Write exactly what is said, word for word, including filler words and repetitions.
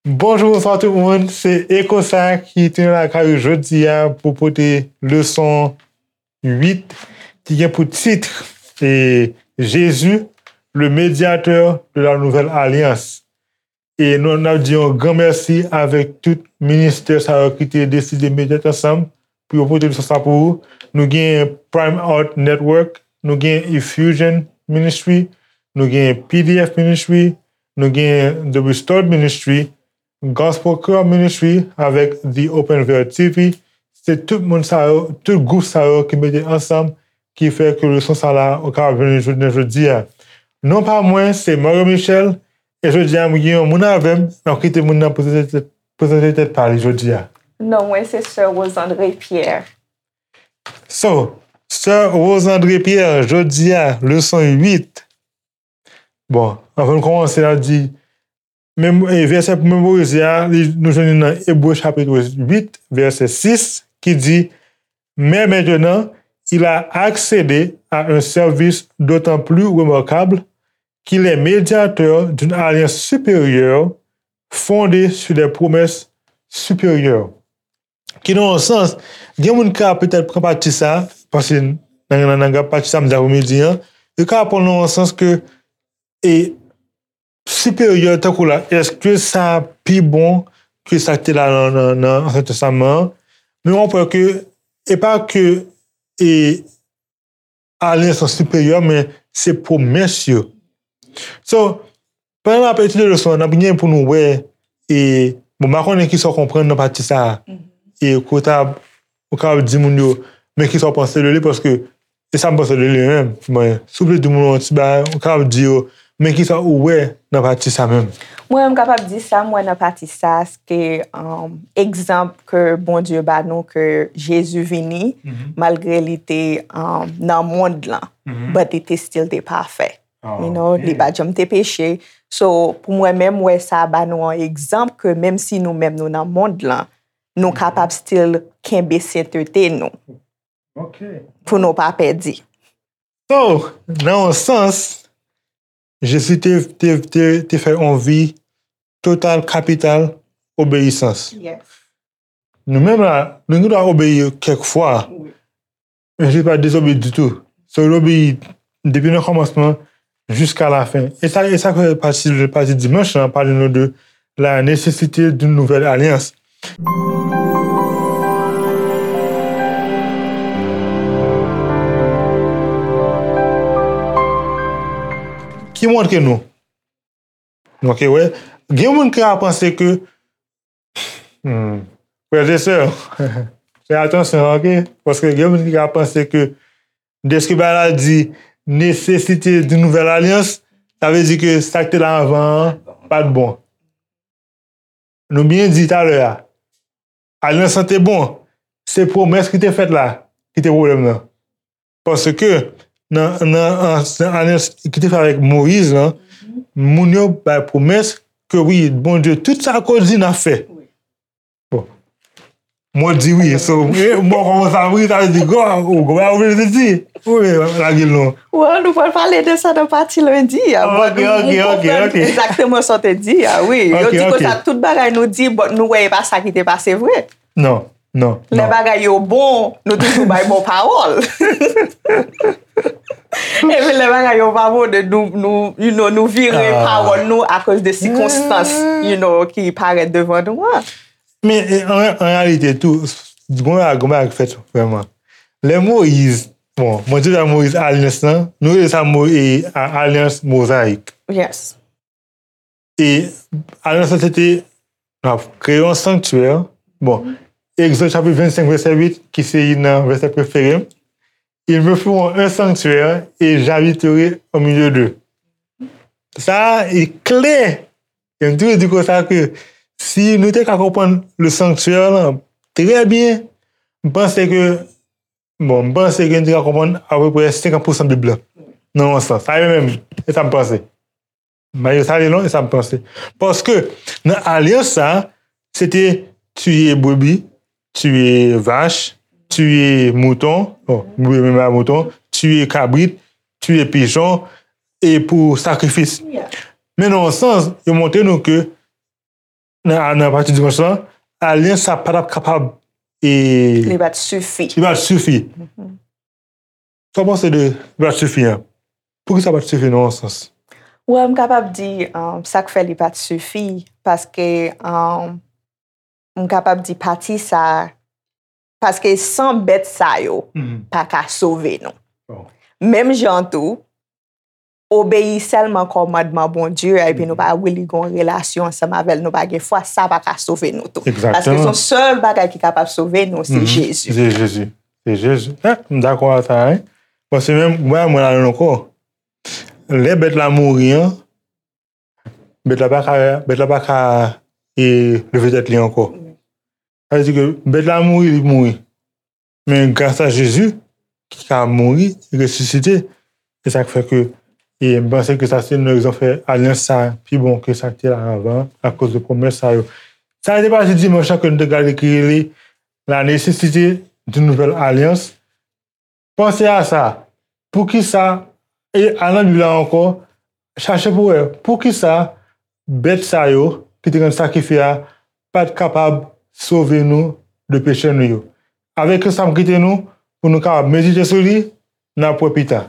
Bonjou, bonswa tout moun. Se Ekosa ki tounen lakay ou jodi a pou pote leson uit ki gen pou tit e Jésus, le médiateur de la nouvelle alliance. E nou, n ap di yon gran mèsi avèk tout ministè sa yo ki te deside mete tèt ansanm pou yo pote leson sa pou ou. Nou gen Prime Art Network, nou gen Effusion Ministry, nou gen P D F Ministry, nou gen The Restored Ministry, Gospel Care Ministry avèk The Open Veil T V. Se tout moun sa yo, tout gwoup sa yo ki mete ansanm ki fè ke leson sa la ou kapab jwenn jodi jodi a. Non pa mwen, se Mario Michel, e jodi a m gen yon moun avè m, m ap kite moun nan prezante tèt, prezante tèt pa li jodi a. Non, mwen se Sè Rosandre Pierre. So, Sè Rosandre Pierre, jodi a, leson uit. Bon, anvan n kòmanse, n ap di, mem-, e, vèsè pou memorize a, li, nou jwenn li nan Ebre chapit uit, vèsè sis, ki di, Mais maintenant, il a accédé à un service d'autant plus remarquable qu'il est médiateur d'une alliance supérieure fondée sur des promesses supérieures. Ki nan yon sans, gen moun ka petèt pran pati sa, paske nan, nan, nan pati sa m di apremidi an, yo ka pran nan yon sans ke, e, siperyè tankou la, èske sa pi bon ke sa k te la nan, nan, nan Ansyen Testaman an? Men w ap wè ke e pa ke e alyans lan siperyè, men se pwomès yo. So, pandan n ap etidye leson an, n ap gen pou nou wè, e, bon, m pa konnen kisa w konprann nan pati sa a. E ke w ta, ou kapab di moun yo, men kisa w panse de li, paske e sa m panse de li menm. Mwen, si w vle di moun yo yon ti bagay, ou kapab di yo, men kisa ou wè nan pati sa menm? Mwen, m kapab di sa m wè nan pati sa, se ke, um, egzanp ke Bondye ba nou, ke Jezi vini, malgre li te, um, nan mond lan, but li te still te pafè. You know, li pa janm te peche. So, pou mwen menm, m wè sa ba nou yon egzanp ke menm si nou menm nou nan mond lan, nou kapab still kenbe sentete nou. Pou nou pa pèdi. So, nan yon sans, Jezi te, te, te, te fè yon vi total, kapital obeyisans. Nou menm la, nou gen dwa obeyi kèk fwa, men Jezi pa t dezobeyi ditou. So, li obeyi depi nan kòmansman jiska lafen. E sa, e sa ke pati, pati dimanch lan pale nou de la nécessité d'une nouvelle alliance. Ki montre nou? Ok, wè. Gen moun ki ka panse ke, hmm, frè e sè, fè atansyon, ok? Paske gen moun ki ka panse ke dèske bagay la di nécessité d'une nouvelle alliance, sa vle di ke sa k te la anvan an pa t bon. Nou byen di talè a, alyans lan te bon, se pwomès ki te fèt la ki te pwoblèm nan. Paske nan, nan, an, nan alyans ki te fèt avèk Moyiz lan, moun yo bay pwomès ke wi, Bondye, tout sa ke w di n ap fè. Bon. Mwen di wi, so, e, mwen kòmanse ap ri, sa vle di, gwa, ou gwa, ou vle di, wi, lage l non. Well, nou pral pale de sa nan pati lendi a. Ok, ok, ok, ok. Egzakteman sa w te di a, wi. Yo di konsa, tout bagay nou di, but nou wè e pa sa ki te pase vre. Non, non, non. Lè bagay yo bon, nou toujou bay bon pawòl. Epi lè bagay yo pa bon, de nou, nou, you know, nou vire pawòl nou akoz de sikonstans, you know, ki parèt devan nou an. Men, e, an, an reyalite tou, gon bagay, gon bagay ki fèt vrèman. Lè Moyiz, bon, mwen di la Moyiz alyans lan, nou rele sa Mo-, e, a-, alyans mozayik. Yes. E alyans lan se te, n ap kreye yon sanktyè. Bon, Egzòd chapit vennsenk, vèsè uit, ki se youn nan vèsè prefere m. Ils me feront un sanctuaire et j'habiterai au milieu d'eux. Sa a, e klè. E m toujou di konsa ke si nou te ka konprann le sanctuaire lan trè byen, m panse ke, bon, m panse ke nou te ka konprann apeprè senkant pousan Bib la. Nan yon sans. Sa e menm, e sa m panse. Mayo sa li long, e sa m panse. Paske nan alyans sa, se te tiye brebi, tiye vach, tiye mouton, bon, brebi menm a mouton, tiye kabrit, tiye pichon, e pou sakrifis. Men nan yon sans, yo montre nou ke nan, nan pati dimanch lan, alyans sa pa t ap kapab e, Li pa t sifi. Li pa t sifi. Sa w panse de li pa t sifi an? Poukisa pa t sifi nan yon sans? Well, m kapab di um, sa k fè li pa t sifi, paske um, m kapab di pati sa, paske san bèt sa yo, pa ka sove nou. Menm jan tou, obeyi sèlman kòmandman Bondye a, epi nou pa really gon relasyon ansanm avè l, nou pa gen fwa, sa pa ka sove nou tou. Paske se yon sèl bagay ki kapab sove nou, se Jezi. Se Jezi. Se Jezi. Eh, m dakò a sa, wi. Paske menm, mwen, mwen la ankò. Lè bèt la mouri an, bèt la pa ka, bèt la pa ka e, leve tèt li ankò. Sa vle di ke bèt la mouri, li mouri. Men gras a Jezi, ki ka mouri, resisite, e sa k fè ke e m panse ke sa se yon rezon fè alyans sa pi bon ke sa k te la anvan, akoz de pwomès sa yo. Sa te pase dimanch lan ke nou te gade ki rele la nesesite d'une nouvelle alliance. Panse a sa. Poukisa, e al nan Bib la ankò, chache pou wè, poukisa bèt sa yo ki te konn sakrifye a pa t kapab sove nou de peche nou yo. Avèk sa m kite nou pou nou kapab medite sou li, n ap wè pita.